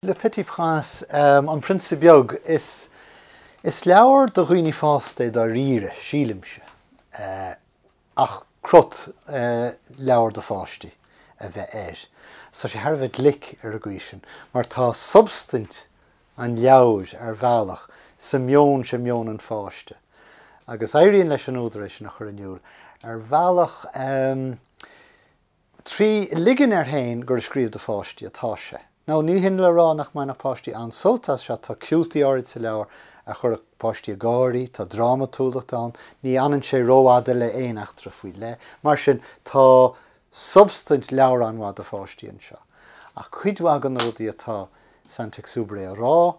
Le Petit Prince, An Prionsa Beag, is leabhar do dhaoine fásta é dáiríre, sílimse, ach crot leabhar do pháistí a bheith air. Tá sé thar a bheith glic ar an gcaoi sin, mar tá substaint an leabhair, ar bhealach, sa meon sin, meon an pháiste. Agus éiríonn leis an údar é sin a chur in iúl ar bhealach. 3 ligean air féin gur ag scríobh do pháistí atá sé. Now, ní hin le rá nach mbainfeadh páistí an-sult as seo, tá ciútaí áirid sa leabhar a chuirfeadh páistí ag gáirí, tá drámatúlacht ann, ní fhanann sé rófhada le aon eachtra faoi leith. Mar sin, tá substaint leabhar an-mhaith do pháistí anseo. Ach cuid mhaith de na rudaí atá Saint-Exupéry a rá,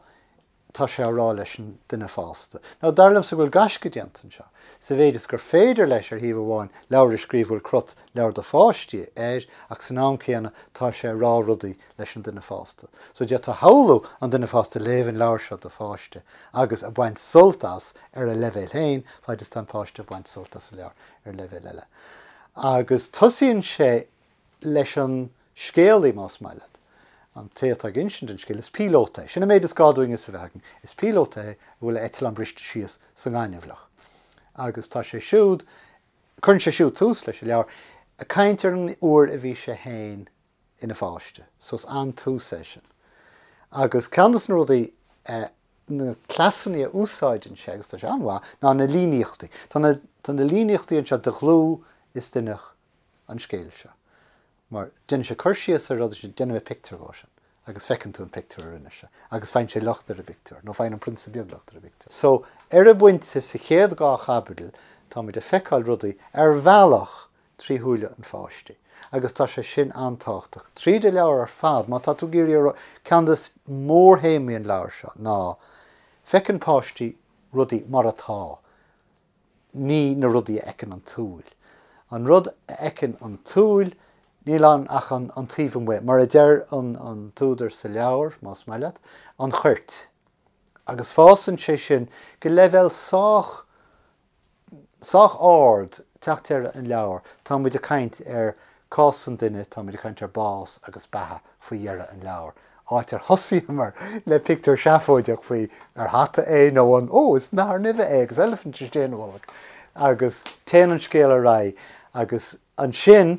tá sé á rá leis an duine fásta. Now, dar liomsa go bhfuil gaisce déanta anseo, sa mhéid is gur féidir leis, ar thaobh amháin, leabhar a scríobh a bhfuil crot leabhar do pháistí air, ach san am céanna tá sé ag rá rudaí leis an duine fásta. So d'fhéadfá a shamhlú an duine fásta ag léamh an leabhair seo do pháiste agus ag baint sult as ar a leibhéal féin, faid is tá an páiste ag baint sult as an leabhar ar leibhéal eile. Agus tosaíonn sé leis an scéalaí, más maith leat. An té atá ag insint an scéil, is píolóta é. Sin an méid is gá dúinn fhios a bheith againn. Is píolóta é a bhfuil a eitleán briste síos sa ngaineamhlach. Agus tá sé siúd, cuireann sé siúd tús leis an leabhar, ag caint ar an uair a bhí sé féin ina pháiste. So is an-tús é sin. Agus ceann de na rudaí, na cleasanna a úsáideann sé, agus tá sé an-mhaith, ná na líníochtaí. Tá na, tá na líníochtaí anseo de dhlúth is d'inneach an scéil seo. Mar déanann sé cur síos ar rud, déanfaidh mé pictiúr dhó sin agus feiceann tú an pictiúr a rinne sé agus faigheann sé locht ar an bpictiúr, nó faigheann an prionsa beag locht ar an bpictiúr. So, ar an bpointe sa chéad dá chaibidil, táimid ag feiceáil rudaí ar bhealach trí shúile an pháiste. Agus tá sé sin an-tábhachtach. Tríd an leabhar ar fad, má tá tú ag iarraidh a rá, ceann de mhórthéamaí an leabhair seo ná, feiceann páistí rudaí mar atá. ní na rudaí a fheiceann an tsúil. An rud a fheiceann an tsúil, níl ann ach an taobh amuigh, mar a deir an t-údar sa leabhar, más maith leat, an choirt. Agus fásann sé sin go leibhéal sách, sách ard, teacht deireadh an leabhair. Tá muid ag caint ar cás an duine, tá muid ag caint ar bás agus beatha faoi dheireadh an leabhair. áit ar thosaíomar le pictiúr seafóideach faoi ar hata é nó an, ó, is nathair nimhe é agus eilifint istigh ina bholg agus téann an scéal ar aghaidh agus ansin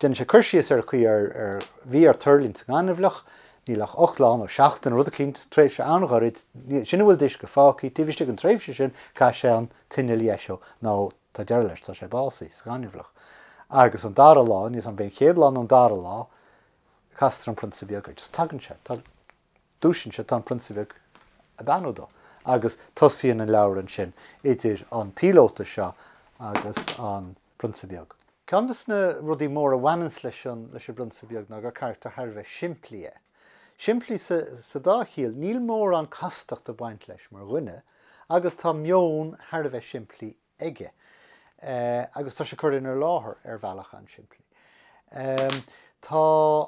déanann sé cur síos ar an chaoi ar ar bhí air tuirlingt sa ngaineamhlach, níl ach 8 lá nó seachtain, rud eicínt, tréimhse an-ghairid, sin a bhfuil d'uisce fágtha, taobh istigh den tréimhse sin caithfidh sé an t-inneall a dheisiú nó tá deireadh leis, tá sé básaithe sa ghaineamhlach. Agus an dara lá, níl 's agam ab é an chéad lá nó an dara lá, Castar an Prionsa Beag air. Just tagann sé, tá, dúisíonn sé, tá an Prionsa Beag ag beannú dó. Agus tosaíonn an leabhar ansin idir an píolóta seo agus an Prionsa Beag. Ceann de na rudaí móra a bhaineanns leis an, leis an bPrionsa Beag ná gur carachtar thar a bheith simplí é. Simplí sa, sa dá chiall, níl mórán castachta ag baint leis mar dhuine agus tá meon thar a bheith simplí aige agus tá sé curtha inár láthair ar bhealach an-simplí. Tá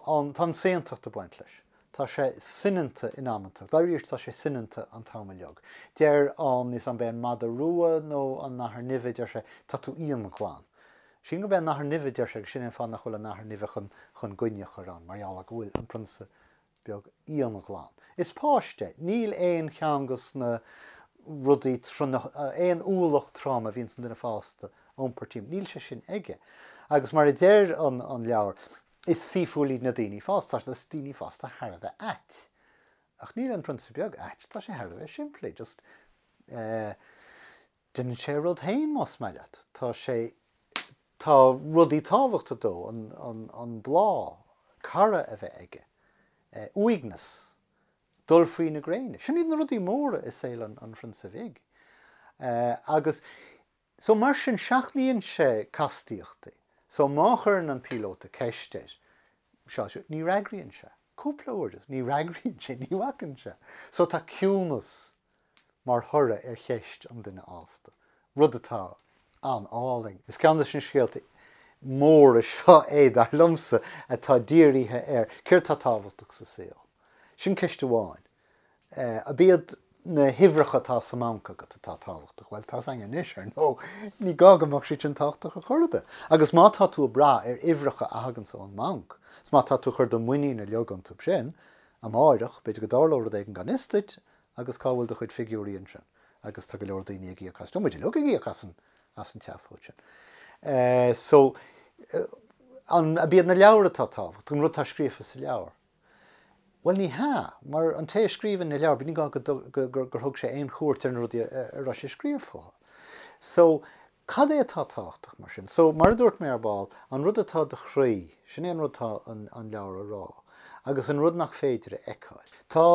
an, tá an saontacht ag baint leis. Tá sé soineanta in amanta. Dáiríre tá sé soineanta an t-am uilig. Deir an, níl 's agam ab é an madadh rua nó an nathair nimhe, deir sé, tá tú íonghlan. Sílim gurb é an nathair nimhe a deir sé agus sin é an fáth nach bhfuil an nathair nimhe chun, chun goine a chur ann, mar gheall ar go bhfuil an prionsa beag íonghlan. Is páiste é. Níl aon cheann de na rudaí, aon ualach trom a bhíonns an duine fásta a iompar timpeall, níl sé sin aige. Agus mar a deir an leabhar, is saoithiúil iad na daoine fásta, tá is daoine fásta thar a bheith ait. Ach níl an Prionsa Beag ait, tá sé thar a bheith simplí, just eh, déanann sé a rud féin más maith leat. Tá sé, tá rudaí tábhachtacha dó, an, an, an bláth, cara a bheith aige, eh, uaigneas, dul faoi na gréine. Sin iad na rudaí móra i saol an, an Phrionsa Bhig. Eh, agus, so mar sin seachnaíonn sé castaíochtaí. So má chuireann an píolóta ceist air, seo, seo, ní fhreagraíonn sé. Cúpla uair, ní fhreagraíonn sé, ní bhacann sé. So tá ciúnas mar thoradh ar cheist an duine fhásta, rud atá an-álainn. Is ceann de na scéalta móra seo é, dar liomsa, atá dírithe ar céard atá tábhachtach sa saol. Sin ceist amháin. Ab iad na huimhreacha atá sa mbanc agat atá tábhachtach? Bhuel, tá's againn anois, ar ndóigh, ní gá go mbeadh siad sin tábhachtach ar chor ar bith. Agus má tá tú ag brath ar uimhreacha a thaganns ón mbanc, is má tá tú ag cur do mhuinín uilig iontu sin, Amáireach, b'fhéidir go dtarlódh rud éigin gan fhios duit agus cá bhfuil do chuid figiúirí ansin? Agus tá go leor daoine ag íoc as, tá muid uilig ag íoc as an, as an tseafóid sin. So, an, ab iad na leabhair atá tábhachtach, an rud atá scríofa sa leabhar? Bhuel, ní hea, mar an té a scríobhann na leabhair, ní gá go, go, gur thug sé aon chuairt ar na rudaí a, a raibh sé ag scríobh fúthu. So, Cad é atá tábhachtach, mar sin? So, mar a dúirt mé ar ball, an rud atá i do chroí, sin é an rud atá an an leabhar a rá, agus an rud nach féidir a fheiceáil. Tá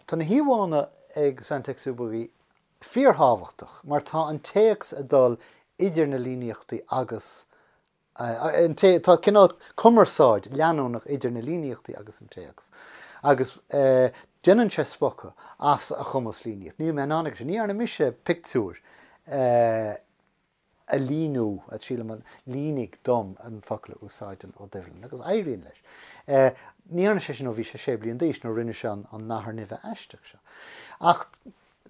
tá na híomhánna ag Saint-Exupéry fíorthábhachtach, mar tá an téacs ag dul idir na líníochtaí agus an té, tá cineál cumarsáid leanúnach idir na líníochtaí agus an téacs, agus déanann sé spochadh as a chumas líníocht. Níl mé in ann aige sin. Ní dhearna mise pictiúr a líniú, sílim an línigh dom an focal a úsáideann Ó Doibhlin, agus éiríonn leis. Ní dhearna sé sin ó bhí sé sé bliain d'aois, nuair a rinne sé an nathair nimhe aisteach seo. Ach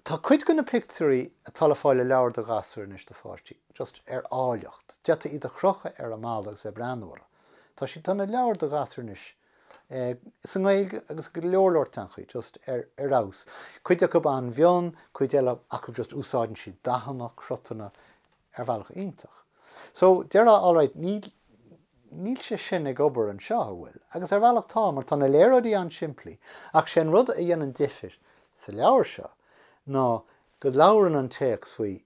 tá cuid de na pictiúirí atá le fáil i leabhair do ghasúir anois, do pháistí, just ar áilleacht. D'fhéadfaí iad a chrochadh ar an mballa agus bheith ag breathnú orthu. Tá siad, tá na leabhair do ghasúir anois, sa nGaeilge agus go leor leor teangachaí, just ar fheabhas. Cuid acu an-mhion, cuid eile acu just úsáideann siad dathanna, cruthanna ar bhealach iontach. So, déarfá, alright, níl, níl sé sin ag obair anseo, an bhfuil? Agus ar bhealach tá, mar tá na léaráidí an-simplí, ach sé an rud a dhéanann difir sa leabhar seo ná go labhrann an téacs faoi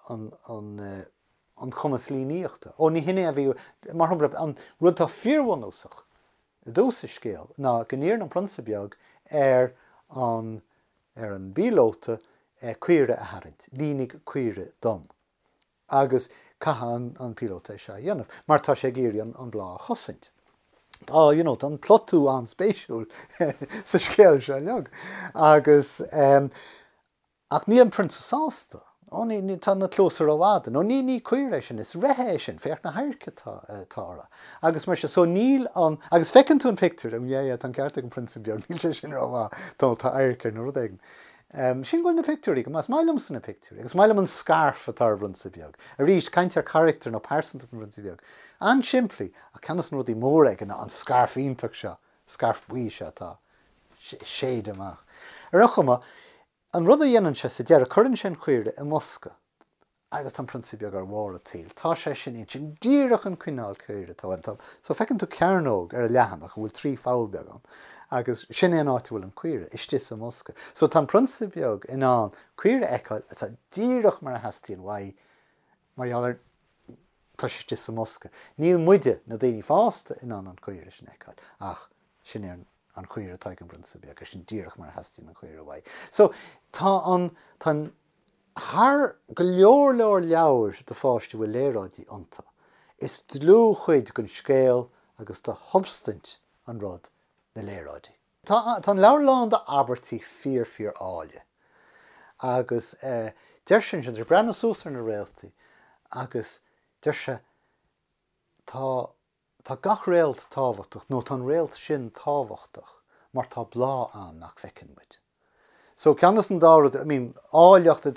an cumas líníochta. Ó, ní hin é a bhí, mar shampla, an rud atá fíorbhunúsach i dtús an scéil ná go n-iarrann an prionsa beag ar an ar an bpíolóta caoire a tharraingt, línigh caoire dom. Agus caithfidh an píolóta é seo a dhéanamh, mar tá sé ag iarraidh an bláth a chosaint. Tá, you know, tá an plotú an-spéisiúil sa scéal seo uilig. Agus. Ach níl an prionsa sásta. Ó, ní, ní, tá na cluasa rófhada. Nó ní, ní caora é sin, is reithe é sin, féach na hadhairc atá, atá orthu. Agus mar sin, so níl an, agus feiceann tú an pictiúr, oh yeah, yeah, tá an ceart ag an prionsa beag, níl sé sin rómhaith, tá, tá adharc air nó rud éigin. Um, sin go bhfuil na pictiúirí go maith, is maith liomsa na pictiúirí, agus is maith liom an scarf atá ar an bprionsa beag. Arís, caint ar charachtar nó pearsantacht an phrionsa beag. An-simplí, ach ceann de na rudaí móra aige ná an scarf iontach seo, scarf buí seo atá ag séideadh amach. Ar aon chuma, An rud a dhéanann sé sa deireadh, cuireann sé an chaoire i mbosca agus tá an prionsa beag ar bharr an tsaoil. Tá sé sin ansin, díreach an cineál caoire atá uaim. Tá, so feiceann tú cearnóg ar an leathanach a bhfuil 3 pholl beag ann agus sin é an áit a bhfuil an caoire, istigh sa mbosca. So tá an prionsa beag in ann caoire a fheiceáil atá díreach mar a theastaíonn uaidh mar gheall ar tá sé istigh sa mbosca. Níl muide, na daoine fásta, in ann an caoire sin a fheiceáil ach sin é an an chaoire atá ag an bprionsa beag, sin díreach mar a theastaíonn an chaoire uaidh. So, tá an, tá an, thar go leor leor leabhair do pháistí a bhfuil léaráidí iontu, is dlúthchuid den scéal agus de shubstaint an rud na léaráidí. Tá, tá an leabhar lán d'abairtí fíor fíor áille agus eh, deir sé ansin, tá sé ag breathnú suas ar na réaltaí agus deir sé, tá Tá gach réalt tábhachtach, nó tá an réalt sin tábhachtach mar tá bláth ann nach bhfeiceann muid. So, ceann des an dá rud, I mean, áilleacht,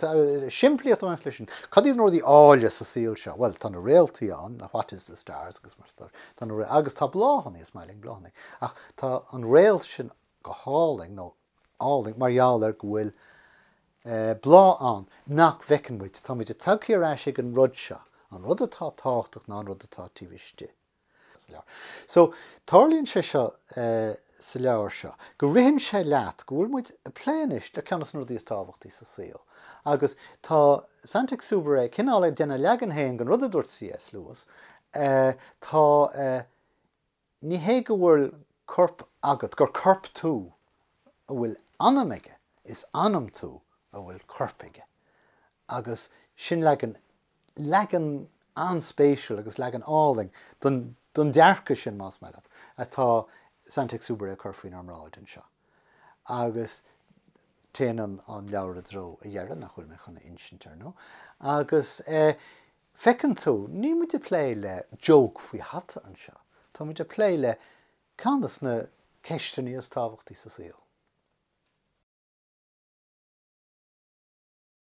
simplíocht a bhaineas leis sin. Cad iad na rudaí áille sa saol seo? Bhuel, tá na réaltaí ann, what is the stars agus mar sin, tá na, agus tá bláthanna, is maith linn bláthanna. Ach tá an réalt sin go hálainn, nó álainn, mar gheall ar go bhfuil bláth ann nach bhfeiceann muid. Tá muid tagtha ar ais ag an rud seo, an rud atá tábhachtach ná an rud atá taobh istigh sa leabhar. So, tarlaíonn sé seo sa leabhar seo, go ritheann sé leat go bhfuil muid ag plé anois le ceann de na rudaí is tábhachtaí sa saol. Agus tá Saint-Exupéry cineál ag déanamh a leagan féin den rud a dúirt C.S. Lewis, tá Ní hé go bhfuil corp agat, gur corp tú a bhfuil anam aige, is anam tú a bhfuil corp aige. Agus sin leagan, leagan an-spéisiúil agus leagan álainn den, den dearcadh sin, más maith leat, atá Saint-Exupéry ag cur faoinár mbráid anseo. Agus téann an, an leabhar i dtreo a dheireadh, nach bhfuil mé chun a insint, ar ndóigh. Agus eh. Feiceann tú, níl muid ag plé le joke faoi hata anseo, tá muid ag plé le ceann de na ceisteanna is tábhachtaí sa saol.